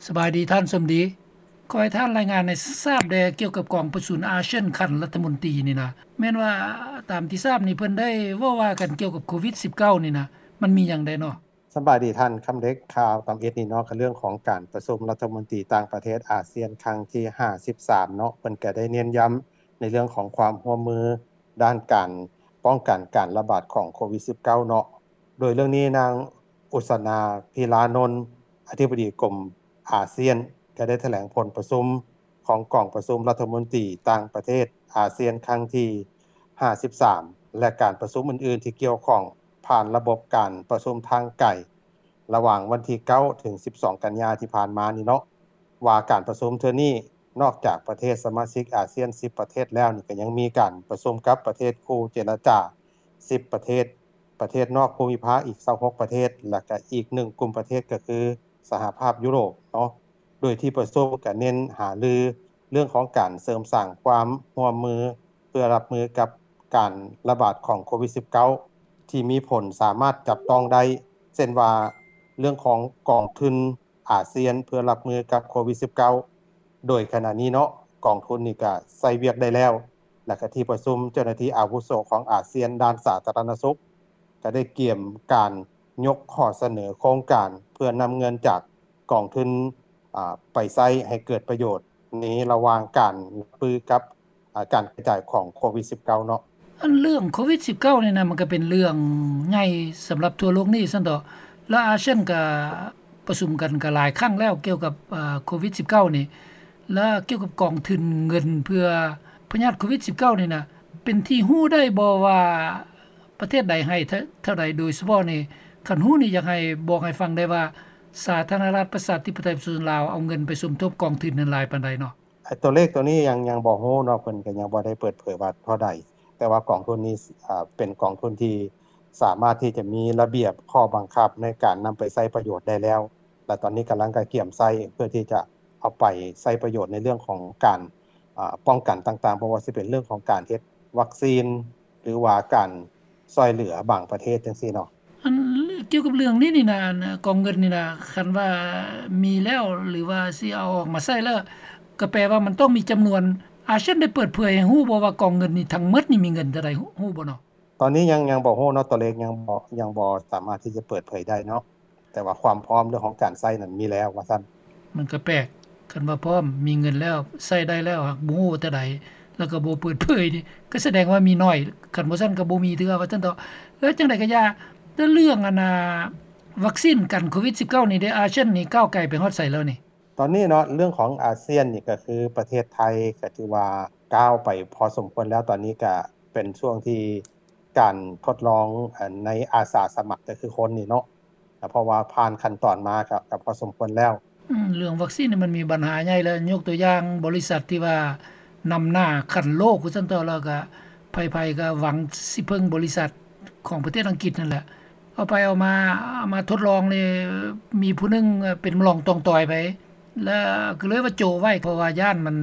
ສະບາຍດີທ່ານສົມດີ. ຂໍໃຫ້ທ່ານລາຍງານໃຫ້ຊາບແດ່ກ່ຽວກັບກອງປະຊຸມອາຊຽນຂັ້ນລັດຖະມົນຕີນີ້ນະ. ແມ່ນວ່າຕາມທີ່ຊາບນີ້ເພິ່ນໄດ້ເວົ້າວ່າກັນກ່ຽວກັບໂຄວິດສິບເກົ້ານີ້ນະ ມັນມີຫຍັງແດ່ເນາະ? ສະບາຍດີທ່ານຄຳເລັກ. ຂ່າວຕຳອິດນີ້ເນາະ ກໍເລື່ອງຂອງການປະຊຸມລັດຖະມົນຕີຕ່າງປະເທດອາຊຽນຄັ້ງທີຫ້າສິບສາມເນາະ ເພິ່ນກໍໄດ້ເນັ້ນຢ້ຳໃນເລື່ອງຂອງຄວາມຮ່ວມມືດ້ານການປ້ອງກັນການລະບາດຂອງໂຄວິດສິບເກົ້າເນາະ. ໂດຍເລື່ອງນີ້ນາງ ອຸສະນາ ພິລານົນ ອະທິບໍດີກົມອາຊຽນ ກໍໄດ້ຖະແຫຼງຜົນປະຊຸມຂອງກອງປະຊຸມລັດຖະມົນຕີຕ່າງປະເທດອາຊຽນຄັ້ງທີຫ້າສິບສາມ ແລະ ການປະຊຸມອື່ນໆທີ່ກ່ຽວຂ້ອງຜ່ານລະບົບການປະຊຸມທາງໄກ ລະຫວ່າງວັນທີເກົ້າ ເຖິງ ສິບສອງ ກັນຍາທີ່ຜ່ານມານີ້ເນາະ ວ່າການປະຊຸມເທື່ອນີ້ ນອກຈາກປະເທດສະມາຊິກອາຊຽນສິບປະເທດແລ້ວນີ້ ກໍຍັງມີການປະຊຸມກັບປະເທດຄູ່ເຈລະຈາສິບປະເທດ, ປະເທດນອກພູມິພາກອີກຊາວຫົກປະເທດ ແລະ ກະອີກໜຶ່ງກຸ່ມປະເທດກໍຄືສະຫະພາບຢູໂຣບເນາະ. ໂດຍທີ່ປະຊຸມກະເນັ້ນຫາລືເລື່ອງຂອງການເສີມສ້າງຄວາມຮ່ວມມື ເພື່ອຮັບມືກັບການລະບາດຂອງໂຄວິດສິບເກົ້າ ທີ່ມີຜົນສາມາດຈັບຕ້ອງໄດ້ ເຊັ່ນວ່າເລື່ອງຂອງກອງທຶນ ອາຊຽນເພື່ອຮັບມືກັບໂຄວິດສິບເກົ້າ ໂດຍຂະນະນີ້ເນາະ ກອງທຶນນີ້ກະໃຊ້ວຽກໄດ້ແລ້ວ ແລະ ກະທີ່ປະຊຸມເຈົ້າໜ້າທີ່ອາວຸໂສຂອງອາຊຽນດ້ານສາທາລະນະສຸກ ກະໄດ້ກຽມການຍົກຂໍ້ສະເໜີໂຄງການເພື່ອນຳເງິນຈາກກອງທຶນ ອາ ໄປໃຊ້ໃຫ້ເກີດປະໂຫຍດໃນລະຫວ່າງການຮັບມືກັບ ອາ ການກະຈາຍຂອງໂຄວິດສິບເກົ້າເນາະ. ອັນເລື່ອງໂຄວິດສິບເກົ້ານີ້ນະ ມັນກໍເປັນເລື່ອງໃຫຍ່ສຳລັບທົ່ວໂລກນີ້ຊັ້ນເຖາະ ແລະ ອາຊຽນກໍປະຊຸມກັນກໍຫຼາຍຄັ້ງແລ້ວກ່ຽວກັບ ເອີ ໂຄວິດສິບເກົ້ານີ້ ແລະ ກ່ຽວກັບກອງທຶນເງິນເພື່ອພະຍາດໂຄວິດສິບເກົ້ານີ້ນະ ເປັນທີ່ຮູ້ໄດ້ບໍ່ວ່າປະເທດໃດໃຫ້ເທົ່າ ເທົ່າໃດ ໂດຍສະເພາະນີ້ ຄັນຮູ້ນີ້ຢາກໃຫ້ບອກໃຫ້ຟັງໄດ້ວ່າ ສາທາລະນະລັດປະຊາທິປະໄຕປະຊາຊົນລາວເອົາເງິນໄປສົມທົບກອງທຶນນັ້ນຫຼາຍປານໃດເນາະ? ຕົວເລກຕົວນີ້ຍັງ ຍັງບໍ່ຮູ້ເນາະ ເພິ່ນກໍຍັງບໍ່ໄດ້ເປີດເຜີຍວ່າເທົ່າໃດ ແຕ່ວ່າກອງທຶນນີ້ ເອີ ເປັນກອງທຶນທີ່ສາມາດທີ່ຈະມີລະບຽບຂໍ້ບັງຄັບໃນການນຳໄປໃຊ້ປະໂຫຍດໄດ້ແລ້ວ ແລະ ຕອນນີ້ກຳລັງກະກຽມໃຊ້ເພື່ອທີ່ຈະເອົາໄປໃຊ້ປະໂຫຍດໃນເລື່ອງຂອງການ ອາ ປ້ອງກັນຕ່າງໆ ບໍ່ວ່າຊິເປັນເລື່ອງຂອງການເຮັດວັກຊີນ ຫຼືວ່າການຊ່ວຍເຫຼືອບາງປະເທດຈັ່ງຊີ້ເນາະ. ອັນ ກ່ຽວກັບເລື່ອງນີ້ນີ້ນະ ອັນ ກອງເງິນນີ້ນະ ຄັນວ່າມີແລ້ວ ຫຼືວ່າຊິເອົາອອກມາໃຊ້ແລ້ວ ກໍແປວ່າມັນຕ້ອງມີຈຳນວນ ອາຊຽນໄດ້ເປີດເຜີຍໃຫ້ຮູ້ບໍ່ວ່າກອງເງິນນີ້ທັງໝົດນີ້ມີເງິນເທົ່າໃດ ຮູ້ບໍ່ເນາະ? ຕອນນີ້ຍັງ ຍັງບໍ່ຮູ້ເນາະ ຕົວເລກຍັງບໍ່ ຍັງບໍ່ສາມາດທີ່ຈະເປີດເຜີຍໄດ້ເນາະ ແຕ່ວ່າຄວາມພ້ອມເລື່ອງຂອງການໃຊ້ນັ້ນມີແລ້ວວ່າຊັ້ນ. ມັນກໍແປກ ຄັນວ່າພ້ອມ ມີເງິນແລ້ວ ໃຊ້ໄດ້ແລ້ວ ຫາກບໍ່ຮູ້ວ່າເທົ່າໃດ ແລ້ວກໍບໍ່ເປີດເຜີຍນີ້ ກໍສະແດງວ່າມີໜ້ອຍ ຄັນບໍ່ຊັ້ນກໍບໍ່ມີເທື່ອວ່າຊັ້ນເຖາະ. ແລ້ວຈັ່ງໃດກໍຢ່າ ແຕ່ເລື່ອງອັນນ່າ ວັກຊີນກັນໂຄວິດສິບເກົ້ານີ້ເດ ອາຊຽນນີ້ກ້າວໄກໄປຮອດໃສແລ້ວນີ້? ຕອນນີ້ເນາະ ເລື່ອງຂອງອາຊຽນນີ້ກໍຄືປະເທດໄທກໍຖືວ່າກ້າວໄປພໍສົມຄວນແລ້ວ ຕອນນີ້ກໍເປັນຊ່ວງທີ່ ການທົດລອງ ເອີ ໃນອາສາສະໝັກ ກໍຄືຄົນນີ້ເນາະ ເພາະວ່າຜ່ານຂັ້ນຕອນມາກໍ ກໍພໍສົມຄວນແລ້ວ. ອືມ ເລື່ອງວັກຊີນນີ້ມັນມີບັນຫາໃຫຍ່ແລ້ວ ຍົກຕົວຢ່າງບໍລິສັດທີ່ວ່ານຳໜ້າຂັ້ນໂລກວ່າຊັ້ນເຖາະ ແລ້ວກໍໃຜໆກໍຫວັງຊິເພິ່ງບໍລິສັດຂອງປະເທດອັງກິດນັ້ນແຫຼະ ເອົາໄປເອົາມາ ເອົາມາທົດລອງນີ້ ມີຜູ້ໜຶ່ງເປັນລອງຕ່ອງຕ່ອຍໄປ ແລ້ວກໍເລີຍວ່າໂຈະໄວ້ ເພາະວ່າຢ້ານມັນ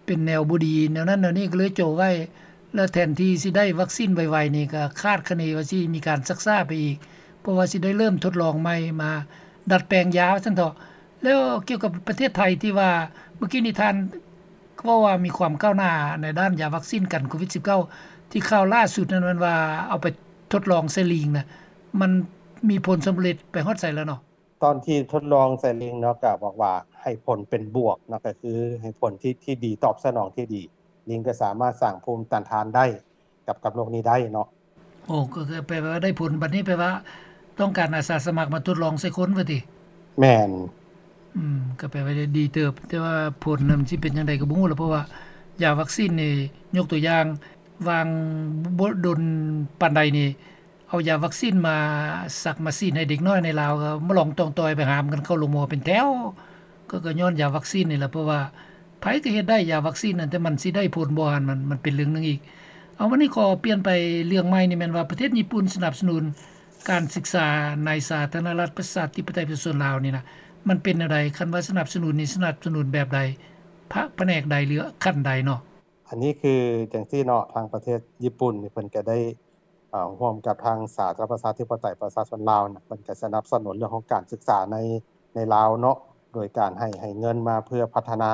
ເປັນແນວບໍ່ດີ ແນວນັ້ນແນວນີ້ ກໍເລີຍໂຈະໄວ້ ແລ້ວແທນທີ່ຊິໄດ້ວັກຊີນໄວໆນີ້ ກໍຄາດຄະເນວ່າຊິມີການຊັກຊ້າໄປອີກ ເພາະວ່າຊິໄດ້ເລີ່ມທົດລອງໃໝ່ ມາດັດແປງຢາວ່າຊັ້ນເຖາະ. ແລ້ວກ່ຽວກັບປະເທດໄທທີ່ວ່າ ເມື່ອກີ້ນີ້ທ່ານເວົ້າວ່າມີຄວາມກ້າວໜ້າໃນດ້ານຢາວັກຊີນກັນໂຄວິດສິບເກົ້າ ທີ່ຂ່າວລ່າສຸດນັ້ນແມ່ນວ່າເອົາໄປທົດລອງໃສ່ລີງນະ ມັນມີຜົນສຳເລັດໄປຮອດໃສແລ້ວເນາະ? ຕອນທີ່ທົດລອງໃສ່ລີງເນາະ ກໍບອກວ່າໃຫ້ຜົນເປັນບວກເນາະ ກໍຄືໃຫ້ຜົນທີ່ ທີ່ດີ ຕອບສະໜອງທີ່ດີ ລີງກໍສາມາດສ້າງພູມຕ້ານທານໄດ້ກັບ ກັບໂລກນີ້ໄດ້ເນາະ. ໂອ້ ກໍແປວ່າໄດ້ຜົນ ບັດນີ້ແປວ່າຕ້ອງການອາສາສະໝັກມາທົດລອງໃສ່ຄົນວ່າຕິ? ແມ່ນ. ອືມ ກໍແປວ່າໄດ້ດີເຕີບ ແຕ່ວ່າຜົນນະມັນຊິເປັນຈັ່ງໃດກໍບໍ່ຮູ້ລະ ເພາະວ່າຢາວັກຊີນນີ້ ຍົກຕົວຢ່າງ ຫວ່າງບໍ່ດົນປານໃດນີ້ ເອົາຢາວັກຊີນມາສັກມາສີດໃຫ້ເດັກນ້ອຍໃນລາວ ກໍມາລອງຕ່ອງຕ່ອຍໄປຫາມກັນເຂົ້າໂຮງໝໍເປັນແຖວ ກໍ ກໍຍ້ອນຢາວັກຊີນນີ້ແຫຼະ ເພາະວ່າໃຜກໍເຮັດໄດ້ຢາວັກຊີນນັ້ນ ແຕ່ມັນຊິໄດ້ຜົນບໍ່ຫັ້ນ ມັນ ມັນເປັນເລື່ອງໜຶ່ງອີກ. ເອົາ ວັນນີ້ຂໍປ່ຽນໄປເລື່ອງໃໝ່ນີ້ ແມ່ນວ່າປະເທດຍີ່ປຸ່ນສະໜັບສະໜູນການສຶກສາໃນສາທາລະນະລັດປະຊາທິປະໄຕປະຊາຊົນລາວນີ້ນະ ມັນເປັນແນວໃດ? ຄັນວ່າສະໜັບສະໜູນນີ້ ສະໜັບສະໜູນແບບໃດ? ພະ ພະແນກໃດ ຫຼື ຂັ້ນໃດເນາະ? ອັນນີ້ຄືຈັ່ງຊີ້ເນາະ ທາງປະເທດຍີ່ປຸ່ນນີ້ ເພິ່ນກໍໄດ້ ເອີ ຮ່ວມກັບທາງສາທາລະນະລັດປະຊາທິປະໄຕປະຊາຊົນລາວນະ ເພິ່ນກໍສະໜັບສະໜູນເລື່ອງຂອງການສຶກສາໃນ ໃນລາວເນາະ ໂດຍການໃຫ້ ໃຫ້ເງິນມາເພື່ອພັດທະນາ.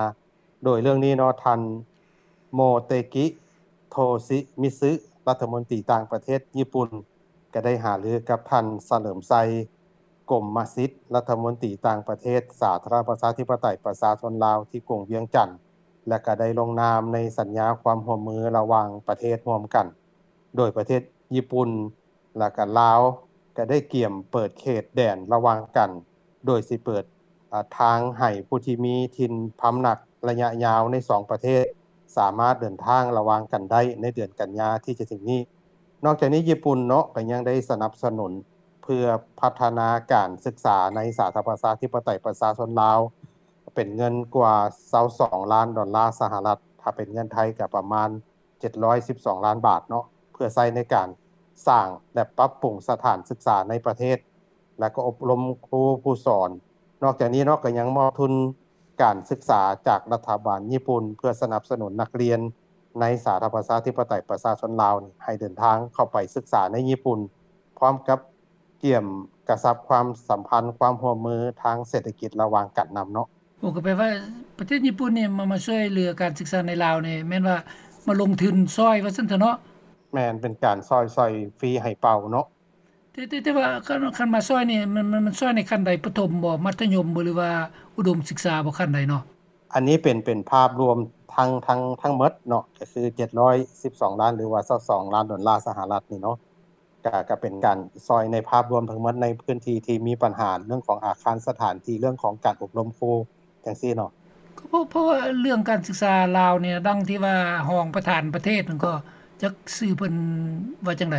ໂດຍເລື່ອງນີ້ເນາະ ທ່ານ ໂມເຕກິ ໂທຊິມິຊຶ ລັດຖະມົນຕີຕ່າງປະເທດຍີ່ປຸ່ນ ກໍໄດ້ຫາລືກັບທ່ານ ສະເຫຼີມໄຊ ກົມມະສິດ ລັດຖະມົນຕີຕ່າງປະເທດສາທາລະນະລັດປະຊາທິປະໄຕປະຊາຊົນລາວ ທີ່ກຸງວຽງຈັນ ແລະ ກໍໄດ້ລົງນາມໃນສັນຍາຄວາມຮ່ວມມືລະຫວ່າງປະເທດຮ່ວມກັນ. ໂດຍປະເທດຍີ່ປຸ່ນ ແລະ ກະລາວ ກະໄດ້ກຽມເປີດເຂດແດນລະຫວ່າງກັນ ໂດຍຊິເປີດ ອາ ທາງໃຫ້ຜູ້ທີ່ມີຖິ່ນພຳນັກໄລຍະຍາວໃນສອງປະເທດ ສາມາດເດີນທາງລະຫວ່າງກັນໄດ້ໃນເດືອນກັນຍາທີ່ຈະເຖິງນີ້. ນອກຈາກນີ້ຍີ່ປຸ່ນເນາະ ກະຍັງໄດ້ສະໜັບສະໜູນເພື່ອພັດທະນາການສຶກສາໃນສາທາລະນະລັດປະຊາທິປະໄຕປະຊາຊົນລາວ ເປັນເງິນກວ່າຊາວສອງລ້ານດອນລາສະຫະລັດ, ຖ້າເປັນເງິນໄທກະປະມານ ເຈັດຮ້ອຍສິບສອງລ້ານບາດເນາະ ເພື່ອໃຊ້ໃນການສ້າງ ແລະ ປັບປຸງສະຖານສຶກສາໃນປະເທດ ແລະ ກໍອົບຮົມຄູຜູ້ສອນ. ນອກຈາກນີ້ເນາະ ກໍຍັງມອບທຶນການສຶກສາຈາກລັດຖະບານຍີ່ປຸ່ນ ເພື່ອສະໜັບສະໜູນນັກຮຽນໃນສາທາລະນະລັດປະຊາທິປະໄຕປະຊາຊົນລາວນີ້ ໃຫ້ເດີນທາງເຂົ້າໄປສຶກສາໃນຍີ່ປຸ່ນ ພ້ອມກັບກຽມກະຊັບຄວາມສຳພັນ ຄວາມຮ່ວມມືທາງເສດຖະກິດລະຫວ່າງກັນນຳເນາະ. ໂອ້ ກໍແປວ່າປະເທດຍີ່ປຸ່ນນີ້ມາ ມາຊ່ວຍເຫຼືອການສຶກສາໃນລາວນີ້ ແມ່ນວ່າມາລົງທຶນຊ່ອຍວ່າຊັ້ນເຖາະເນາະ? ແມ່ນ ເປັນການຊ່ອຍ ຊ່ອຍຟຣີໃຫ້ເປົ່າເນາະ. ແຕ່ ແຕ່ ແຕ່ວ່າຄັນ ຄັນມາຊ່ອຍນີ້ ມັນ ມັນ ມັນຊ່ອຍໃນຂັ້ນໃດ? ປະຖົມບໍ? ມັດທະຍົມບໍ? ຫຼືວ່າອຸດົມສຶກສາບໍ? ຂັ້ນໃດເນາະ? ອັນນີ້ເປັນ ເປັນພາບລວມທັງ ທັງ ທັງໝົດເນາະ ກໍຄືເຈັດຮ້ອຍສິບສອງລ້ານ ຫຼືວ່າຊາວສອງລ້ານດອນລາສະຫະລັດນີ້ເນາະ. ກະ ກະເປັນການຊ່ອຍໃນພາບລວມທັງໝົດ ໃນພື້ນທີ່ທີ່ມີບັນຫາເລື່ອງຂອງອາຄານສະຖານທີ່ ເລື່ອງຂອງການອົບຮົມຄູຈັ່ງຊີ້ເນາະ. ກໍເພາະ ເພາະວ່າເລື່ອງການສຶກສາລາວນີ້ ດັ່ງທີ່ວ່າຮອງປະທານປະເທດນັ້ນ ກໍຈັກຊື່ເພິ່ນວ່າຈັ່ງໃດ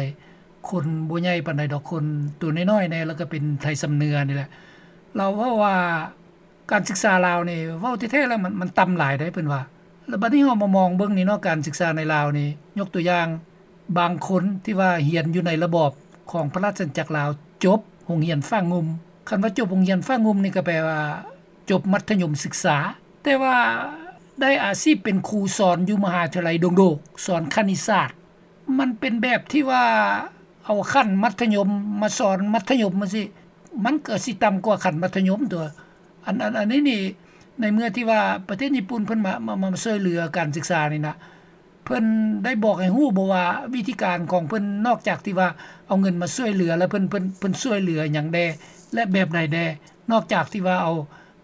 ຄົນບໍ່ໃຫຍ່ປານໃດດອກ ຄົນໂຕນ້ອຍໆແດ່ ແລ້ວກໍເປັນໄທຊຳເໜືອນີ້ແຫຼະ ລາວເວົ້າວ່າ ການສຶກສາລາວນີ້ ເວົ້າແທ້ໆແລ້ວມັນ ມັນຕ່ຳຫຼາຍເດ້ເພິ່ນວ່າ. ແລ້ວບັດນີ້ເຮົາມາມອງເບິ່ງນີ້ເນາະ ການສຶກສາໃນລາວນີ້ ຍົກຕົວຢ່າງ ບາງຄົນທີ່ວ່າຮຽນຢູ່ໃນລະບອບຂອງພະລາຊະອານາຈັກລາວ ຈົບໂຮງຮຽນຝາງງຸ່ມ. ຄັນວ່າຈົບໂຮງຮຽນຝາງງຸ່ມນີ້ ກໍແປວ່າຈົບມັດທະຍົມສຶກສາ ແຕ່ວ່າໄດ້ອາຊີບເປັນຄູສອນຢູ່ມະຫາວິທະຍາໄລດົງໂດກ ສອນຄະນິດສາດ. ມັນເປັນແບບທີ່ວ່າເອົາຂັ້ນມັດທະຍົມມາສອນມັດທະຍົມຈັ່ງຊີ້ ມັນກໍຊິຕ່ຳກວ່າຂັ້ນມັດທະຍົມຕົວະ. ອັນ ອັນ ອັນນີ້ນີ້ ໃນເມື່ອທີ່ວ່າປະເທດຍີ່ປຸ່ນເພິ່ນມາ ມາ ມາຊ່ວຍເຫຼືອການສຶກສານີ້ນະ ເພິ່ນໄດ້ບອກໃຫ້ຮູ້ບໍ່ວ່າ ວິທີການຂອງເພິ່ນ ນອກຈາກທີ່ວ່າເອົາເງິນມາຊ່ວຍເຫຼືອ ແລ້ວເພິ່ນ ເພິ່ນ ເພິ່ນຊ່ວຍເຫຼືອຫຍັງແດ່ ແລະ ແບບໃດແດ່ ນອກຈາກທີ່ວ່າເອົາ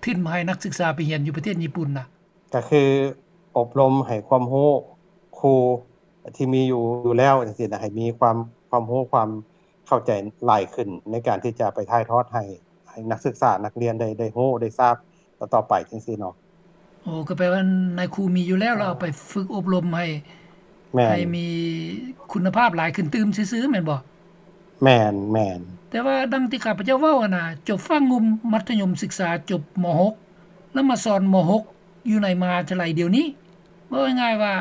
ທຶນມາໃຫ້ນັກສຶກສາໄປຮຽນຢູ່ປະເທດຍີ່ປຸ່ນນະ? ກໍຄືອົບຮົມໃຫ້ຄວາມຮູ້ຄູທີ່ມີຢູ່ ຢູ່ແລ້ວຈັ່ງຊີ້ນະ ໃຫ້ມີຄວາມ ຄວາມຮູ້ ຄວາມເຂົ້າໃຈຫຼາຍຂຶ້ນ ໃນການທີ່ຈະໄປຖ່າຍທອດໃຫ້ ໃຫ້ນັກສຶກສານັກຮຽນໄດ້ ໄດ້ຮູ້ໄດ້ຊາບຕໍ່ໆໄປຈັ່ງຊີ້ເນາະ. ໂອ້ ກໍແປວ່ານາຍຄູມີຢູ່ແລ້ວ ແລ້ວເອົາໄປຝຶກອົບຮົມໃຫ້ ແມ່ນ ໃຫ້ມີຄຸນນະພາບຫຼາຍຂຶ້ນຕື່ມຊື່ໆ ແມ່ນບໍ່? ແມ່ນ ແມ່ນ. ແຕ່ວ່າດັ່ງທີ່ຂ້າພະເຈົ້າເວົ້າຫັ້ນນະ ຈົບຝາງງຸ່ມ ມັດທະຍົມສຶກສາ ຈົບ ມ.ຫົກ ແລ້ວມາສອນ ມ.ຫົກ ຢູ່ໃນມະຫາວິທະຍາໄລດຽວນີ້ ເວົ້າງ່າຍໆວ່າ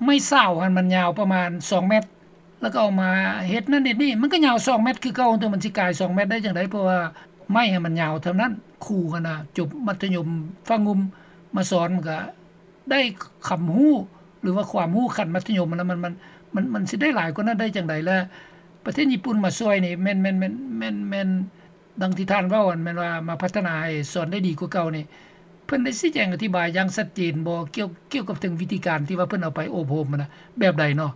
ໄມ້ເສົາຫັ້ນມັນຍາວປະມານສອງແມັດ ແລ້ວກໍເອົາມາເຮັດນັ້ນເຮັດນີ້ ມັນກໍຍາວສອງແມັດຄືເກົ່າ ແຕ່ມັນຊິກາຍສອງແມັດໄດ້ຈັ່ງໃດ ເພາະວ່າໄມ້ຫັ້ນມັນຍາວເທົ່ານັ້ນ. ຄູຫັ້ນນະ ຈົບມັດທະຍົມຝາງງຸ່ມມາສອນ ມັນກໍໄດ້ຄຳຮູ້ ຫຼືວ່າຄວາມຮູ້ຂັ້ນມັດທະຍົມຫັ້ນນະ ມັນ ມັນ ມັນ ມັນຊິໄດ້ຫຼາຍກວ່ານັ້ນໄດ້ຈັ່ງໃດ? ແລະ ປະເທດຍີ່ປຸ່ນມາຊ່ວຍນີ້ ແມ່ນ ແມ່ນ ແມ່ນ ແມ່ນ ແມ່ນ ດັ່ງທີ່ທ່ານເວົ້າຫັ້ນ ແມ່ນວ່າມາພັດທະນາໃຫ້ສອນໄດ້ດີກວ່າເກົ່ານີ້ ເພິ່ນໄດ້ຊີ້ແຈງອະທິບາຍຢ່າງຊັດເຈນບໍ່ ກ່ຽວ ກ່ຽວກັບເຖິງວິທີການທີ່ວ່າເພິ່ນເອົາໄປອົບຮົມຫັ້ນນະ ແບບໃດເນາະ?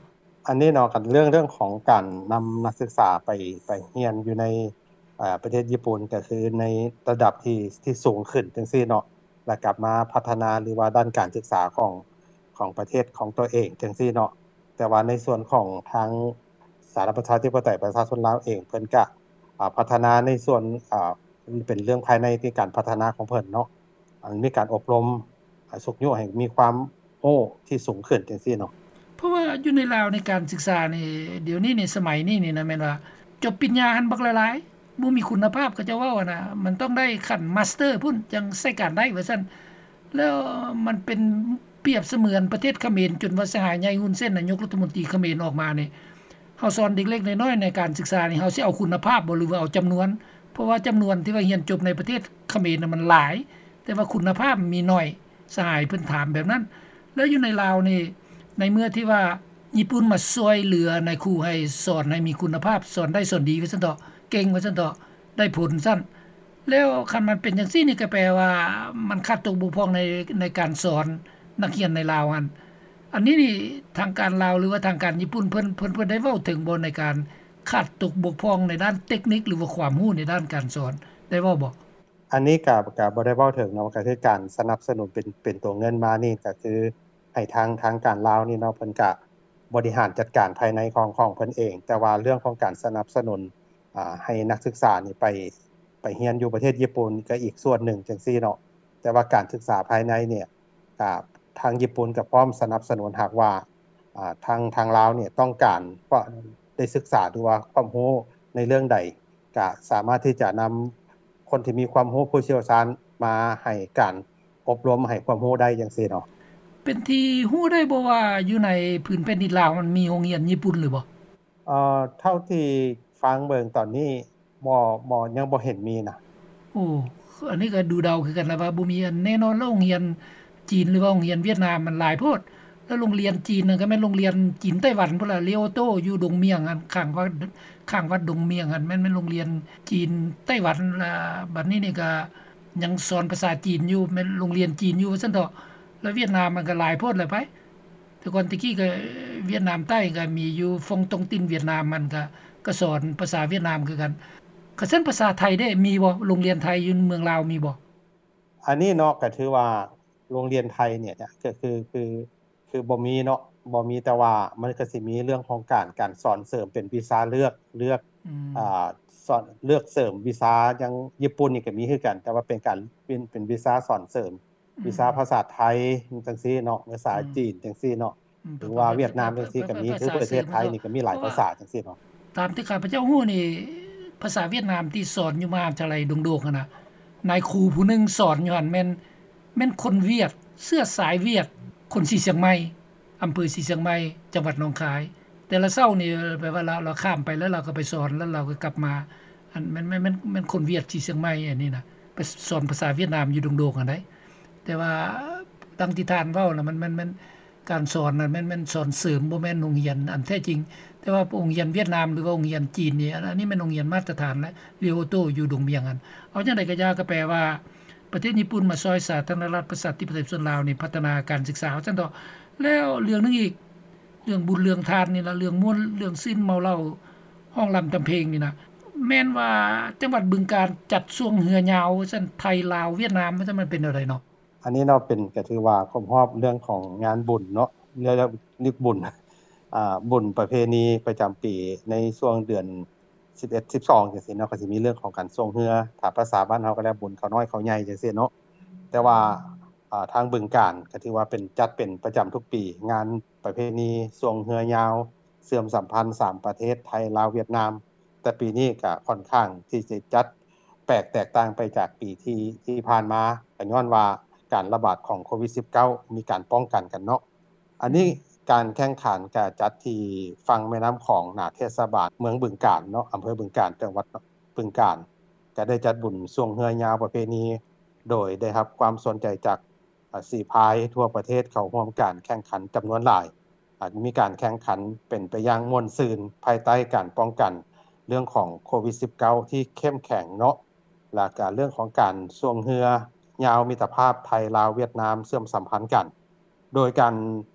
ອັນນີ້ເນາະ ຄັນເລື່ອງ ເລື່ອງຂອງການນຳນັກສຶກສາໄປ ໄປຮຽນຢູ່ໃນ ເອີ ປະເທດຍີ່ປຸ່ນ ກໍຄືໃນລະດັບທີ່ ທີ່ສູງຂຶ້ນຈັ່ງຊີ້ເນາະ ແລ້ວກັບມາພັດທະນາ ຫຼືວ່າດ້ານການສຶກສາຂອງ ຂອງປະເທດຂອງຕົວເອງຈັ່ງຊີ້ເນາະ. ແຕ່ວ່າໃນສ່ວນຂອງທາງສາທາລະນະລັດປະຊາທິປະໄຕປະຊາຊົນລາວເອງ ເພິ່ນກະ ອາ ພັດທະນາໃນສ່ວນ ອາ ເປັນເລື່ອງພາຍໃນທີ່ການພັດທະນາຂອງເພິ່ນເນາະ ອັນມີການອົບຮົມ ອາ ຊຸກຍູ້ໃຫ້ມີຄວາມຮູ້ທີ່ສູງຂຶ້ນຈັ່ງຊີ້ເນາະ. ເພາະວ່າຢູ່ໃນລາວໃນການສຶກສານີ້ ດຽວນີ້ນີ້ ສະໄໝນີ້ນີ້ນະ ແມ່ນວ່າຈົບປະລິນຍາຫັ້ນບັກຫຼາຍໆ ບໍ່ມີຄຸນນະພາບ ເຂົາເຈົ້າເວົ້າຫັ້ນນະ ມັນຕ້ອງໄດ້ຂັ້ນມາສເຕີພຸ້ນ ຈັ່ງໃຊ້ການໄດ້ວ່າຊັ້ນ. ແລ້ວມັນເປັນປຽບສະເໝືອນປະເທດຂະເໝນ ຈົນວ່າສະຫາຍໃຫຍ່ ຮຸນເຊນ ນາຍົກລັດຖະມົນຕີຂະເໝນອອກມານີ້ ເຮົາສອນເດັກເລັກນ້ອຍໃນການສຶກສານີ້ ເຮົາຊິເອົາຄຸນນະພາບບໍ່ ຫຼືວ່າເອົາຈຳນວນ? ເພາະວ່າຈຳນວນທີ່ວ່າຮຽນຈົບໃນປະເທດຂະເໝນນະມັນຫຼາຍ ແຕ່ວ່າຄຸນນະພາບມີໜ້ອຍ ສະຫາຍເພິ່ນຖາມແບບນັ້ນ. ແລ້ວຢູ່ໃນລາວນີ້ ໃນເມື່ອທີ່ວ່າຍີ່ປຸ່ນມາຊ່ວຍເຫຼືອນາຍຄູໃຫ້ສອນໃຫ້ມີຄຸນນະພາບ ສອນໄດ້ສອນດີວ່າຊັ້ນເຖາະ ເກັ່ງວ່າຊັ້ນເຖາະ ໄດ້ຜົນຊັ້ນ ແລ້ວຄັນມັນເປັນຈັ່ງຊີ້ນີ້ ກໍແປວ່າມັນຂາດຕົກບົກຜ່ອງໃນ ໃນການສອນນັກຮຽນໃນລາວຫັ້ນ. ອັນນີ້ນີ້ທາງການລາວ ຫຼືວ່າທາງການຍີ່ປຸ່ນເພິ່ນ ເພິ່ນ ເພິ່ນໄດ້ເວົ້າເຖິງບໍ່ ໃນການຂາດຕົກບົກຜ່ອງໃນດ້ານເຕັກນິກ ຫຼືວ່າຄວາມຮູ້ໃນດ້ານການສອນ ໄດ້ເວົ້າບໍ່? ອັນນີ້ກະ ກະບໍ່ໄດ້ເວົ້າເຖິງເນາະ ກະຄືການສະໜັບສະໜູນເປັນ ເປັນຕົວເງິນມານີ້ ກະຄືໃຫ້ທາງ ທາງການລາວນີ້ເນາະ ເພິ່ນກະບໍລິຫານຈັດການພາຍໃນຂອງ ຂອງເພິ່ນເອງ. ແຕ່ວ່າເລື່ອງຂອງການສະໜັບສະໜູນ ອາ ໃຫ້ນັກສຶກສານີ້ໄປ ໄປຮຽນຢູ່ປະເທດຍີ່ປຸ່ນ ກະອີກສ່ວນໜຶ່ງຈັ່ງຊີ້ເນາະ. ແຕ່ວ່າການສຶກສາພາຍໃນນີ້ ກະທາງຍີ່ປຸ່ນກະພ້ອມສະໜັບສະໜູນ ຫາກວ່າ ອາ ທາງ ທາງລາວນີ້ຕ້ອງການ ເພາະໄດ້ສຶກສາ ຫຼືວ່າຄວາມຮູ້ໃນເລື່ອງໃດ ກະສາມາດທີ່ຈະນຳຄົນທີ່ມີຄວາມຮູ້ຜູ້ຊ່ຽວຊານມາໃຫ້ການອົບຮົມ ໃຫ້ຄວາມຮູ້ໄດ້ຈັ່ງຊີ້ເນາະ. ເປັນທີ່ຮູ້ໄດ້ບໍ່ວ່າ ຢູ່ໃນພື້ນແຜ່ນດິນລາວ ມັນມີໂຮງຮຽນຍີ່ປຸ່ນຫຼືບໍ່? ເອີ ເທົ່າທີ່ຟັງເບິ່ງຕອນນີ້ ບໍ່ ບໍ່ ຍັງບໍ່ເຫັນມີນະ. ໂອ້ ອັນນີ້ກໍດູເດົາຄືກັນລະວ່າບໍ່ມີອັນແນ່ນອນ. ແລ້ວໂຮງຮຽນຈີນ ຫຼືວ່າໂຮງຮຽນຫວຽດນາມມັນຫຼາຍໂພດ. ແລ້ວໂຮງຮຽນຈີນນັ້ນກໍແມ່ນໂຮງຮຽນຈີນໄຕ້ຫວັນພຸ້ນລະ ເລໂອໂຕ ຢູ່ດົງໝຽງຫັ້ນ ຂ້າງວັດ ຂ້າງວັດດົງໝຽງຫັ້ນ ແມ່ນ ແມ່ນໂຮງຮຽນຈີນໄຕ້ຫວັນ. ລະບັດນີ້ນີ້ກໍຍັງສອນພາສາຈີນຢູ່ ແມ່ນໂຮງຮຽນຈີນຢູ່ວ່າຊັ້ນເຖາະ. ແລ້ວຫວຽດນາມມັນກໍຫຼາຍໂພດແຫຼະໄປ. ແຕ່ກ່ອນແຕ່ກີ້ກໍຫວຽດນາມໃຕ້ກໍມີຢູ່ ຟົງຕົງຕິນຫວຽດນາມ ມັນກໍ ກໍສອນພາສາຫວຽດນາມຄືກັນ. ຄັນຊັ້ນພາສາໄທເດ້ ມີບໍ່? ໂຮງຮຽນໄທຢູ່ເມືອງລາວມີບໍ່? ອັນນີ້ເນາະ ກໍຖືວ່າໂຮງຮຽນໄທນີ້ ກໍຄື ຄື ຄືບໍ່ມີເນາະ ບໍ່ມີ. ແຕ່ວ່າມັນກໍຊິມີເລື່ອງຂອງການ ການສອນເສີມເປັນວິຊາເລືອກ ເລືອກ ອືມ ອາ ສອນ ເລືອກເສີມວິຊາ. ຢ່າງຍີ່ປຸ່ນນີ້ກໍມີຄືກັນ ແຕ່ວ່າເປັນການ ເປັນ ເປັນວິຊາສອນເສີມ ອືມ ວິຊາພາສາໄທຈັ່ງຊີ້ເນາະ ພາສາ ອືມ ຈີນຈັ່ງຊີ້ເນາະ ອືມ ຫຼືວ່າຫວຽດນາມຈັ່ງຊີ້ກໍມີ. ພາສາ ຄືປະເທດໄທນີ້ກໍມີຫຼາຍພາສາຈັ່ງຊີ້ເນາະ. ຕາມທີ່ຂ້າພະເຈົ້າຮູ້ນີ້ ພາສາຫວຽດນາມທີ່ສອນຢູ່ມະຫາວິທະຍາໄລດົງໂດກຫັ້ນນະ ນາຍຄູຜູ້ໜຶ່ງສອນຢູ່ຫັ້ນແມ່ນ ແມ່ນຄົນຫວຽດ ເຊື້ອສາຍຫວຽດ ຄົນສີຊຽງໃໝ່ ອຳເພີສີຊຽງໃໝ່ ຈັງຫວັດໜອງຄາຍ. ແຕ່ລະເຊົ້ານີ້ ແບບວ່າລາວ ລາວຂ້າມໄປ ແລ້ວລາວກໍໄປສອນ ແລ້ວລາວກໍກັບມາ. ອັນ ແມ່ນ ແມ່ນ ແມ່ນ ແມ່ນຄົນຫວຽດສີຊຽງໃໝ່ອັນນີ້ນະ ໄປສອນພາສາຫວຽດນາມຢູ່ດົງໂດກຫັ້ນໃດ. ແຕ່ວ່າດັ່ງທີ່ທ່ານເວົ້ານະ ມັນ ມັນ ມັນ ການສອນນັ້ນແມ່ນ ແມ່ນສອນເສີມ ບໍ່ແມ່ນໂຮງຮຽນອັນແທ້ຈິງ. ແຕ່ວ່າໂຮງຮຽນຫວຽດນາມ ຫຼືວ່າໂຮງຮຽນຈີນນີ້ ອັນ ອັນນີ້ແມ່ນໂຮງຮຽນມາດຕະຖານ ແລະ ເລໂອໂຕຢູ່ດົງໝຽງຫັ້ນ. ເອົາຈັ່ງໃດກໍຢ່າ ກໍແປວ່າປະເທດຍີ່ປຸ່ນມາຊ່ອຍສາທາລະນະລັດປະຊາທິປະໄຕປະຊາຊົນລາວນີ້ ພັດທະນາການສຶກສາ ວ່າຊັ້ນເຖາະ. ແລ້ວເລື່ອງໜຶ່ງອີກ ເລື່ອງບຸນເລື່ອງທານນີ້ລະ ເລື່ອງມ່ວນເລື່ອງຊື່ນເມົາເຫຼົ້າ ຮ້ອງລຳທຳເພງນີ້ນະ ແມ່ນວ່າຈັງຫວັດບຶງການຈັດຊ່ວງເຮືອຍາວວ່າຊັ້ນ ໄທ ລາວ ຫວຽດນາມ ວ່າຊັ້ນ ມັນເປັນແນວໃດເນາະ? ອັນນີ້ເນາະ ເປັນ ກໍຖືວ່າຄົບຮອບເລື່ອງຂອງງານບຸນເນາະ ເລື່ອງລຶກບຸນ ອາ ບຸນປະເພນີປະຈຳປີໃນຊ່ວງເດືອນສິບເອັດ ສິບສອງ ຈັ່ງຊີ້ເນາະ ກໍຊິມີເລື່ອງຂອງການຊ່ວງເຮືອ ຖ້າພາສາບ້ານເຮົາກໍແລ້ວ ບຸນເຂົ້ານ້ອຍເຂົ້າໃຫຍ່ຈັ່ງຊີ້ເນາະ. ແຕ່ວ່າ ອາ ທາງບຶງການກໍຖືວ່າເປັນ ຈັດເປັນປະຈຳທຸກປີ ງານປະເພນີຊ່ວງເຮືອຍາວ ເຊື່ອມສຳພັນສາມປະເທດ ໄທ ລາວ ຫວຽດນາມ. ແຕ່ປີນີ້ກະຂ້ອນຂ້າງທີ່ຈະຈັດແປກແຕກຕ່າງໄປຈາກປີທີ່ ທີ່ຜ່ານມາ ກະຍ້ອນວ່າການລະບາດຂອງໂຄວິດສິບເກົ້າ ມີການປ້ອງກັນກັນເນາະ. ອັນນີ້ ອືມ ການແຂ່ງຂັນກະຈັດທີ່ຝັ່ງແມ່ນ້ຳຂອງ ໜ້າເທດສະບານເມືອງບຶງການເນາະ ອຳເພີບຶງການ ຈັງຫວັດບຶງການ ກະໄດ້ຈັດບຸນຊ່ວງເຮືອຍາວປະເພນີ ໂດຍໄດ້ຮັບຄວາມສົນໃຈຈາກ ອາ ສີພາຍທົ່ວປະເທດເຂົ້າຮ່ວມການແຂ່ງຂັນຈຳນວນຫຼາຍ. ອາ ມີການແຂ່ງຂັນເປັນໄປຢ່າງມ່ວນຊື່ນ ພາຍໃຕ້ການປ້ອງກັນເລື່ອງຂອງໂຄວິດສິບເກົ້າ ທີ່ເຂັ້ມແຂງເນາະ ແລະ ກະເລື່ອງຂອງການຊ່ວງເຮືອຍາວມິດຕະພາບໄທ ລາວ ຫວຽດນາມ ເຊື່ອມສຳພັນກັນ. ໂດຍການ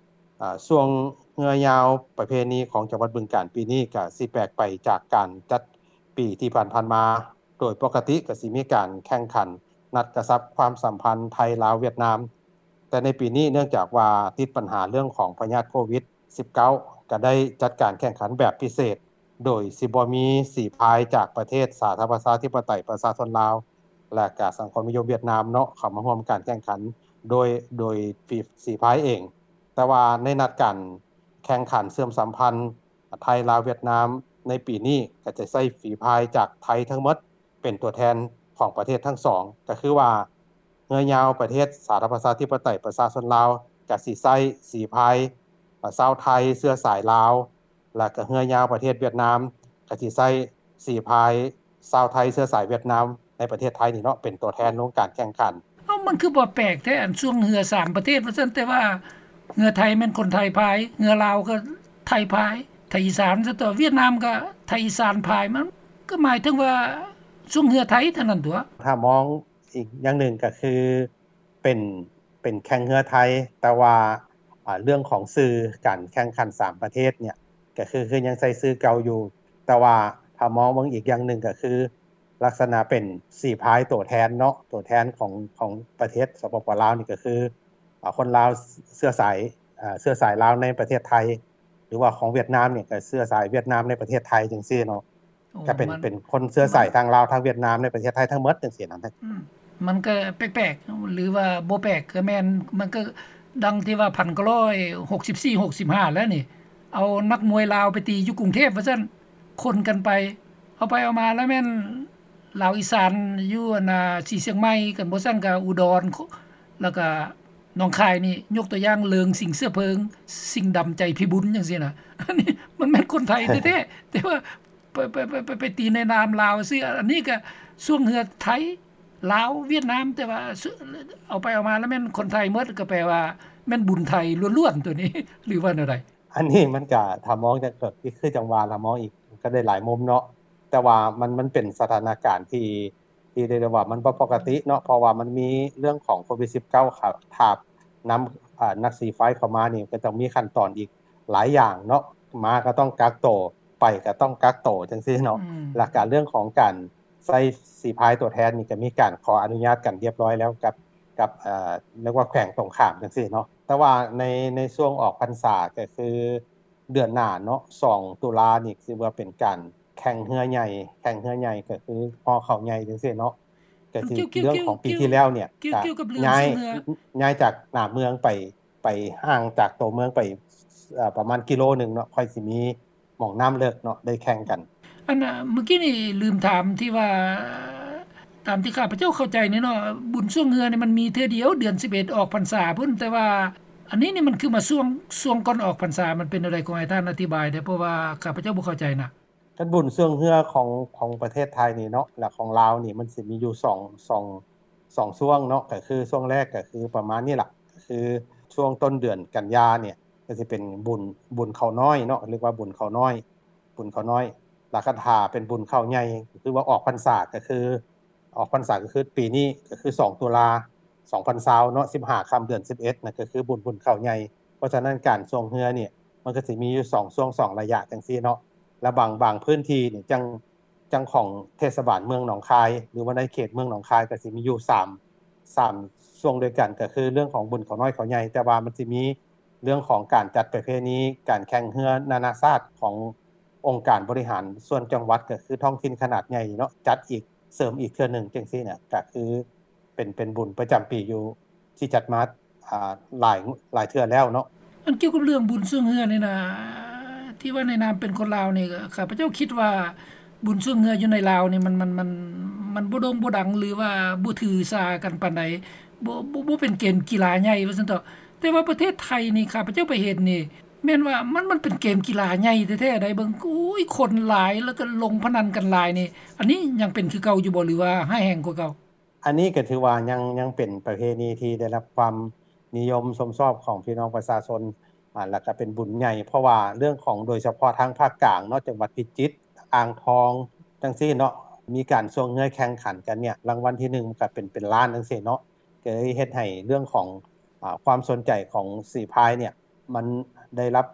ອາ ຊ່ວງເຮືອຍາວປະເພນີຂອງຈັງຫວັດບຶງການປີນີ້ ກະຊິແປກໄປຈາກການຈັດປີທີ່ຜ່ານໆມາ. ໂດຍປົກກະຕິກໍຊິມີການແຂ່ງຂັນນັດກະຊັບຄວາມສຳພັນໄທ ລາວ ຫວຽດນາມ, ແຕ່ໃນປີນີ້ເນື່ອງຈາກວ່າຕິດບັນຫາເລື່ອງຂອງພະຍາດໂຄວິດສິບເກົ້າ ກໍໄດ້ຈັດການແຂ່ງຂັນແບບພິເສດ ໂດຍຊິບໍ່ມີສີພາຍຈາກປະເທດສາທາລະນະລັດປະຊາທິປະໄຕປະຊາຊົນລາວ ແລະ ກະສັງຄົມນິຍົມຫວຽດນາມເນາະ ເຂົ້າມາຮ່ວມການແຂ່ງຂັນໂດຍ ໂດຍສີພາຍເອງ. ແຕ່ວ່າໃນນັດການແຂ່ງຂັນເຊື່ອມສຳພັນ ໄທ ລາວ ຫວຽດນາມ ໃນປີນີ້ກໍຈະໃຊ້ຝີພາຍຈາກໄທທັງໝົດເປັນຕົວແທນຂອງປະເທດທັງສອງ ກໍຄືວ່າເຮືອຍາວປະເທດສາທາລະນະລັດປະຊາທິປະໄຕປະຊາຊົນລາວ ກໍຊິໃຊ້ສີພາຍ ອາ ຊາວໄທເຊື້ອສາຍລາວ ແລະ ກໍເຮືອຍາວປະເທດຫວຽດນາມ ກໍຊິໃຊ້ສີພາຍຊາວໄທເຊື້ອສາຍຫວຽດນາມໃນປະເທດໄທນີ້ເນາະ ເປັນຕົວແທນລົງການແຂ່ງຂັນ. ເອົ້າ ມັນຄືບໍ່ແປກແທ້ ອັນຊ່ວງເຮືອສາມປະເທດວ່າຊັ້ນ ແຕ່ວ່າເຮືອໄທແມ່ນຄົນໄທພາຍ ເຮືອລາວກໍໄທພາຍ ໄທອີສານຊະຕົວະ ຫວຽດນາມກໍໄທອີສານພາຍ ມັນກໍໝາຍເຖິງວ່າ ຊ່ວງເຮືອໄທເທົ່ານັ້ນຕົວະ. ຖ້າມອງອີກຢ່າງໜຶ່ງກໍຄືເປັນ ເປັນແຂ່ງເຮືອໄທ ແຕ່ວ່າ ອ່າ ເລື່ອງຂອງຊື່ການແຂ່ງຂັນສາມປະເທດເນີ້ຍ ກໍຄື ຄືຍັງໃຊ້ຊື່ເກົ່າຢູ່ ແຕ່ວ່າຖ້າມອງເບິ່ງອີກຢ່າງໜຶ່ງກໍຄື ລັກສະນະເປັນສີພາຍຕົວແທນເນາະ ຕົວແທນຂອງ ຂອງປະເທດ ສປປ ລາວ ນີ້ກໍຄື ອ່າ ຄົນລາວເຊື້ອສາຍ ເຊື້ອສາຍລາວໃນປະເທດໄທ ຫຼືວ່າຂອງຫວຽດນາມນີ້ກໍເຊື້ອສາຍຫວຽດນາມໃນປະເທດໄທຈັ່ງຊີ້ເນາະ. ໂອ້ ກໍເປັນ ມັນ ເປັນຄົນເຊື້ອສາຍ ມັນ ທາງລາວ ທາງຫວຽດນາມໃນປະເທດໄທທັງໝົດຈັ່ງຊີ້ນະ. ອືມ ມັນກໍແປກໆ ຫຼືວ່າບໍ່ແປກກໍແມ່ນ ມັນກໍດັ່ງທີ່ວ່າ ພັນເກົ້າຮ້ອຍຫົກສິບສີ່ ຫົກສິບຫ້າ ແລ້ວນີ້ ເອົານັກມວຍລາວໄປຕີຢູ່ກຸງເທບວ່າຊັ້ນ ຄົນກັນໄປ ເອົາໄປເອົາມາແລ້ວແມ່ນລາວອີສານຢູ່ອັນນ່າ ສີຊຽງໃໝ່ກັນ ບໍ່ຊັ້ນກໍອຸດອນ ແລ້ວກໍໜອງຄາຍນີ້ ຍົກຕົວຢ່າງເລີງ ສິງເສືອເພີງ ສິງດຳໃຈພິບູນຈັ່ງຊີ້ນະ. ອັນນີ້ມັນແມ່ນຄົນໄທແທ້ໆ ແຕ່ວ່າໄປ ໄປ ໄປ ໄປ ໄປຕີໃນນາມລາວຊື່. ອັນນີ້ກໍຊ່ວງເຮືອໄທ ລາວ ຫວຽດນາມ ແຕ່ວ່າເອົາໄປເອົາມາແລ້ວແມ່ນຄົນໄທໝົດ ກໍແປວ່າແມ່ນບຸນໄທລ້ວນໆ ຕົວນີ້ ຫຼືວ່າແນວໃດ? ອັນນີ້ມັນກະ ຖ້າມອງຈັ່ງ ກໍຄືຈັ່ງວ່າລະ ມອງອີກກໍໄດ້ຫຼາຍມຸມເນາະ ແຕ່ວ່າມັນ ມັນເປັນສະຖານະການທີ່ ທີ່ໄດ້ວ່າມັນບໍ່ປົກກະຕິເນາະ ເພາະວ່າມັນມີເລື່ອງຂອງໂຄວິດສິບເກົ້າ ຂາບ ທາບນຳ ອາ ນັກສີພາຍເຂົ້າມານີ້ ກໍຕ້ອງມີຂັ້ນຕອນອີກຫຼາຍຢ່າງເນາະ ມາກໍຕ້ອງກັກໂຕ ໄປກໍຕ້ອງກັກໂຕຈັ່ງຊີ້ເນາະ. ອືມ ແລ້ວກະເລື່ອງຂອງການໃຊ້ສີພາຍຕົວແທນນີ້ ກໍມີການຂໍອະນຸຍາດກັນຮຽບຮ້ອຍແລ້ວກັບ ກັບ ເອີ ເອີ້ນວ່າແຂວງຕົງຂ້າມຈັ່ງຊີ້ເນາະ. ແຕ່ວ່າໃນ ໃນຊ່ວງອອກພັນສາ ກໍຄືເດືອນໜ້າເນາະ ສອງຕຸລານີ້ ຖືວ່າເປັນການ ແຂ່ງເຮືອໃຫຍ່ ແຂ່ງເຮືອໃຫຍ່ກໍຄືຫໍ່ເຂົ້າໃຫຍ່ຈັ່ງຊີ້ເນາະ ກໍຄືເລື່ອງຂອງປີທີ່ແລ້ວນີ້ ກໍຍ້າຍ ຍ້າຍຈາກໜ້າເມືອງໄປ ໄປຫ່າງຈາກໂຕເມືອງໄປ ເອີ ປະມານກິໂລໜຶ່ງເນາະ ຄ່ອຍຊິມີໝ່ອງນ້ຳເລິກເນາະ ໄດ້ແຂ່ງກັນ. ອັນ ເມື່ອກີ້ນີ້ລືມຖາມທີ່ວ່າ ຕາມທີ່ຂ້າພະເຈົ້າເຂົ້າໃຈນີ້ເນາະ ບຸນຊ່ວງເຮືອນີ້ມັນມີເທື່ອດຽວ ເດືອນສິບເອັດອອກພັນສາພຸ້ນ ແຕ່ວ່າອັນນີ້ນີ້ມັນຄືມາຊ່ວງ ຊ່ວງກ່ອນອອກພັນສາ ມັນເປັນແນວໃດ ຂໍໃຫ້ທ່ານອະທິບາຍແດ່ ເພາະວ່າຂ້າພະເຈົ້າບໍ່ເຂົ້າໃຈນະ. ຄັນບຸນຊ່ວງເຮືອຂອງ ຂອງປະເທດໄທນີ້ເນາະ ແລະ ຂອງລາວນີ້ ມັນຊິມີຢູ່ສອງ ສອງ ສອງຊ່ວງເນາະ ກໍຄືຊ່ວງແລກກໍຄືປະມານນີ້ລະ ກໍຄືຊ່ວງຕົ້ນເດືອນກັນຍານີ້ ກໍຊິເປັນບຸນ ບຸນເຂົ້ານ້ອຍເນາະ ເອີ້ນວ່າບຸນເຂົ້ານ້ອຍ ບຸນເຂົ້ານ້ອຍ. ແລ້ວຄັນຖ້າເປັນບຸນເຂົ້າໃຫຍ່ ກໍຄືວ່າອອກພັນສາ ກໍຄື ອອກພັນສາກໍຄືປີນີ້ ກໍຄືສອງຕຸລາ ສອງພັນຊາວເນາະ ສິບຫ້າຄ່ຳເດືອນສິບເອັດນະ ກໍຄືບຸນ ບຸນເຂົ້າໃຫຍ່. ເພາະສະນັ້ນການຊ່ວງເຮືອນີ້ ມັນກໍຊິມີຢູ່ສອງຊ່ວງ ສອງໄລຍະຈັ່ງຊີ້ເນາະ ແລະ ບາງ ບາງພື້ນທີ່ນີ້ຈັ່ງ ຈັ່ງຂອງເທດສະບານເມືອງໜອງຄາຍ ຫຼືວ່າໃນເຂດເມືອງໜອງຄາຍ ກໍຊິມີຢູ່ສາມ ສາມຊ່ວງດ້ວຍກັນ ກໍຄືເລື່ອງຂອງບຸນເຂົ້ານ້ອຍເຂົ້າໃຫຍ່ ແຕ່ວ່າມັນຊິມີເລື່ອງຂອງການຈັດປະເພນີ ການແຂ່ງເຮືອນານາຊາດຂອງອົງການບໍລິຫານສ່ວນຈັງຫວັດ ກໍຄືທ້ອງຖິ່ນຂະໜາດໃຫຍ່ເນາະ ຈັດອີກ ເສີມອີກເທື່ອໜຶ່ງຈັ່ງຊີ້ນະ ກໍຄືເປັນ ເປັນບຸນປະຈຳປີຢູ່ ທີ່ຈັດມາ ອ່າ ຫຼາຍ ຫຼາຍເທື່ອແລ້ວເນາະ. ອັນກ່ຽວກັບເລື່ອງບຸນຊ່ວງເຮືອນີ້ນະ ທີ່ວ່າໃນນາມເປັນຄົນລາວນີ້ ຂ້າພະເຈົ້າຄິດວ່າບຸນຊ່ວງເຮືອຢູ່ໃນລາວນີ້ ມັນ ມັນ ມັນ ມັນບໍ່ໂດ່ງບໍ່ດັງ ຫຼືວ່າບໍ່ຖືສາກັນປານໃດ ບໍ່ ບໍ່ ບໍ່ເປັນເກມກິລາໃຫຍ່ວ່າຊັ້ນເຖາະ. ແຕ່ວ່າປະເທດໄທນີ້ ຂ້າພະເຈົ້າໄປເຫັນນີ້ ແມ່ນວ່າມັນ ມັນເປັນເກມກິລາໃຫຍ່ແທ້ໆໃດ໋ ເບິ່ງ ໂອ້ຍ ຄົນຫຼາຍ ແລ້ວກໍລົງພະນັນກັນຫຼາຍນີ້ ອັນນີ້ຍັງເປັນຄືເກົ່າຢູ່ບໍ່ ຫຼືວ່າຮ້າຍແຮງກວ່າເກົ່າ? ອັນນີ້ກໍຖືວ່າຍັງ ຍັງເປັນປະເພນີທີ່ໄດ້ຮັບຄວາມນິຍົມຊົມຊອບຂອງພີ່ນ້ອງປະຊາຊົນ ອາ ແລ້ວກໍເປັນບຸນໃຫຍ່ ເພາະວ່າເລື່ອງຂອງ ໂດຍສະເພາະທາງພາກກາງເນາະ ຈັງຫວັດພິຈິດ ອ່າງທອງ ຈັ່ງຊີ້ເນາະ ມີການຊ່ວງເຮືອແຂ່ງຂັນກັນເນີ້ຍ ລາງວັນທີໜຶ່ງມັນກໍເປັນ ເປັນລ້ານຈັ່ງຊີ້ເນາະ ກໍເລີຍເຮັດໃຫ້ເລື່ອງຂອງ ອາ ຄວາມສົນໃຈຂອງສີພາຍເນີ້ຍ ມັນໄດ້ຮັບ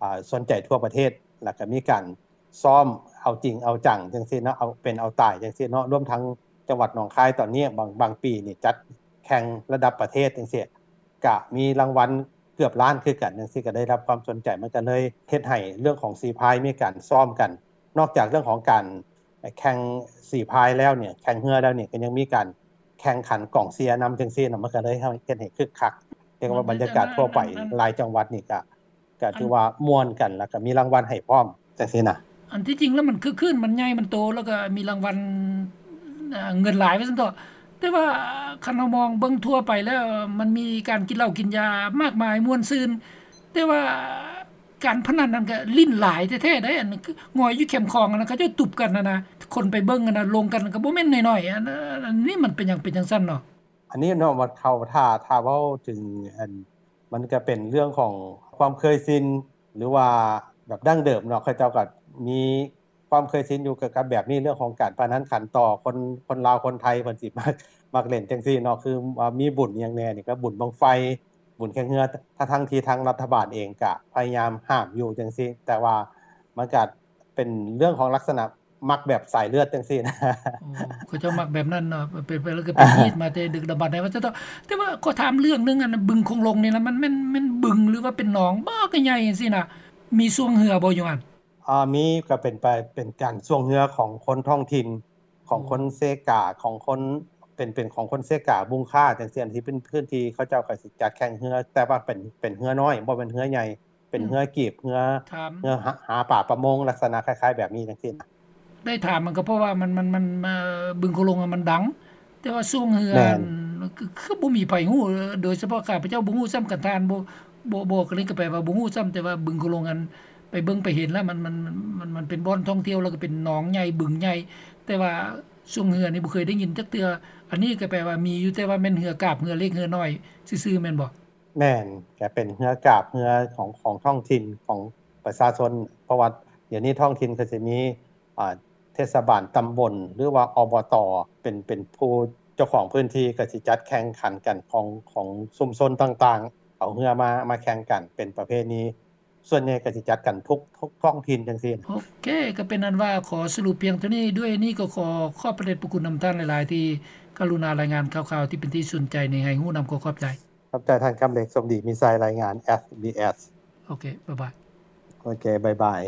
ອາ ສົນໃຈທົ່ວປະເທດ ແລ້ວກໍມີການຊ້ອມເອົາຈິງເອົາຈັງຈັ່ງຊີ້ເນາະ ເອົາເປັນເອົາຕາຍຈັ່ງຊີ້ເນາະ ລວມທັງຈັງຫວັດໜອງຄາຍຕອນນີ້ ບາງ ບາງປີນີ້ຈັດແຂ່ງລະດັບປະເທດຈັ່ງຊີ້ ກະມີລາງວັນເກືອບລ້ານຄືກັນຈັ່ງຊີ້ ກະໄດ້ຮັບຄວາມສົນໃຈ ມັນກະເລີຍເຮັດໃຫ້ເລື່ອງຂອງສີພາຍມີການຊ້ອມກັນ ນອກຈາກເລື່ອງຂອງການແຂ່ງສີພາຍແລ້ວນີ້ ແຂ່ງເຮືອແລ້ວນີ້ ກະຍັງມີການແຂ່ງຂັນກອງເຊຍນຳຈັ່ງຊີ້ນະ ມັນກະເລີຍເຮັດໃຫ້ຄຶກຄັກ ເອີ້ນວ່າບັນຍາກາດທົ່ວໄປ ຫຼາຍຈັງຫວັດນີ້ກະ ກໍຖືວ່າມ່ວນກັນ ແລ້ວກໍມີລາງວັນໃຫ້ພ້ອມ ຈັ່ງຊີ້ນະ. ອັນທີ່ຈິງແລ້ວມັນຄຶກຄື້ນ ມັນໃຫຍ່ ມັນໂຕ ແລ້ວກໍມີລາງວັນ ເງິນຫຼາຍວ່າຊັ້ນເຖາະ ແຕ່ວ່າຄັນເຮົາມອງເບິ່ງທົ່ວໄປແລ້ວ ມັນມີການກິນເຫຼົ້າກິນຢາມາກມາຍ ມ່ວນຊື່ນ ແຕ່ວ່າການພະນັນນັ້ນກໍຫຼິ້ນຫຼາຍແທ້ໆໃດ໋ ອັນງອຍຢູ່ແຄມຂອງຫັ້ນນະ ເຂົາເຈົ້າຕຸບກັນຫັ້ນນະ ຄົນໄປເບິ່ງຫັ້ນນະ ລົງກັນກໍບໍ່ແມ່ນນ້ອຍໆ ອັນ ອັນນີ້ມັນເປັນຫຍັງເປັນຈັ່ງຊັ້ນເນາະ? ອັນນີ້ເນາະ ວ່າເຂົາ ຖ້າ ຖ້າເວົ້າເຖິງ ອັນ ມັນກະເປັນເລື່ອງຂອງຄວາມເຄີຍຊິນ ຫຼືວ່າແບບດັ້ງເດີມເນາະ ເຂົາເຈົ້າກະມີຄວ ຄວາມເຄີຍຊິນຢູ່ກັບ ກັບແບບນີ້ ເລື່ອງຂອງການພະນັນຂັນຕໍ່ ຄົນ ຄົນລາວຄົນໄທເພິ່ນຊິມັກ ມັກເລ່ນຈັ່ງຊີ້ເນາະ ຄືວ່າມີບຸນຫຍັງແດ່ນີ້ ກໍບຸນບັ້ງໄຟ ບຸນແຂ່ງເຮືອ ທັງໆທີ່ທາງລັດຖະບານເອງກະພະຍາຍາມຫ້າມຢູ່ຈັ່ງຊີ້ ແຕ່ວ່າມັນກະເປັນເລື່ອງຂອງລັກສະນະມັກແບບສາຍເລືອດຈັ່ງຊີ້ນະ. ໂອ້ ເຂົາເຈົ້າມັກແບບນັ້ນເນາະ ເປັນໄປແລ້ວກໍເປັນຮີດມາແຕ່ດຶກດຳບັນໃດວ່າຊັ້ນເຖາະ. ແຕ່ວ່າຂໍຖາມເລື່ອງໜຶ່ງ ອັນບຶງຄົງລົງນີ້ລະ ມັນແມ່ນ ແມ່ນບຶງ ຫຼືວ່າເປັນໜອງບໍ່ ກໍໃຫຍ່ຈັ່ງຊີ້ນະ ມີຊ່ວງເຮືອບໍ່ຢູ່ຫັ້ນ? ອ່າ ມີ ກໍເປັນໄປ ເປັນການຊ່ວງເຮືອຂອງຄົນທ້ອງຖິ່ນ ຂອງຄົນເຊກາ ຂອງຄົນ ເປັນ ເປັນຂອງຄົນເຊກາ ບຸງຄາ ຈັ່ງຊີ້ ທີ່ເປັນພື້ນທີ່ເຂົາເຈົ້າກໍຊິຈັດແຂ່ງເຮືອ ແຕ່ວ່າເປັນ ເປັນເຮືອນ້ອຍ ບໍ່ແມ່ນເຮືອໃຫຍ່ ເປັນເຮືອກີບ ເຮືອ ເຮືອຫາ ຫາປາປະມົງ ລັກສະນະຄ້າຍໆແບບນີ້ຈັ່ງຊີ້ນະ. ໄດ້ຖາມມັນກໍເພາະວ່າມັນ ມັນ ມັນ ເອີ ບຶງໂຂງຫຼວງມັນດັງ ແຕ່ວ່າຊ່ວງເຮືອ ແມ່ນ ຄື ຄືບໍ່ມີໃຜຮູ້ ໂດຍສະເພາະຂ້າພະເຈົ້າບໍ່ຮູ້ຊ້ຳ ຄັນທ່ານບໍ່ ບໍ່ ບໍ່ ກໍເລີຍກໍແປວ່າບໍ່ຮູ້ຊ້ຳ ແຕ່ວ່າບຶງໂຂງຫຼວງ ອັນ ໄປເບິ່ງໄປເຫັນແລ້ວ ມັນ ມັນ ມັນ ມັນເປັນບ່ອນທ່ອງທ່ຽວ ແລ້ວກໍເປັນໜອງໃຫຍ່ ບຶງໃຫຍ່ ແຕ່ວ່າຊ່ວງເຮືອນີ້ບໍ່ເຄີຍໄດ້ຍິນຈັກເທື່ອ. ອັນນີ້ກໍແປວ່າມີຢູ່ ແຕ່ວ່າແມ່ນເຮືອກາບ ເຮືອເລັກ ເຮືອນ້ອຍຊື່ໆ ແມ່ນບໍ່? ແມ່ນ ກະເປັນເຮືອກາບເຮືອຂອງ ຂອງທ້ອງຖິ່ນ ຂອງປະຊາຊົນ ເພາະວ່າດຽວນີ້ທ້ອງຖິ່ນກໍຊິມີ ອ່າ ເທດສະບານຕຳບົນ ຫຼືວ່າ ອບຕ ເປັນ ເປັນຜູ້ເຈົ້າຂອງພື້ນທີ່ ກໍຊິຈັດແຂ່ງຂັນກັນ ຂອງ ຂອງຊຸມຊົນຕ່າງໆ ເອົາເຮືອມາ ມາແຂ່ງກັນ ເປັນປະເພນີ ສ່ວນໃຫຍ່ກໍຊິຈັດກັນທຸກ ທຸກທ້ອງຖິ່ນຈັ່ງຊີ້. ໂອເຄ ກໍເປັນອັນວ່າຂໍສະຫຼຸບພຽງເທົ່ານີ້. ດ້ວຍນີ້ກໍຂໍຂອບພະເດດພະຄຸນນຳທ່ານຫຼາຍໆ ທີ່ກະລຸນາລາຍງານຂ່າວໆ ທີ່ເປັນທີ່ສົນໃຈນີ້ໃຫ້ຮູ້ນຳ. ຂໍຂອບໃຈ. ຂອບໃຈທ່ານຄຳເລັກ ສົມດີມີໄຊ ລາຍງານ ເອສບີເອສ. ໂອເຄ ບາຍບາຍ. ໂອເຄ ບາຍບາຍ.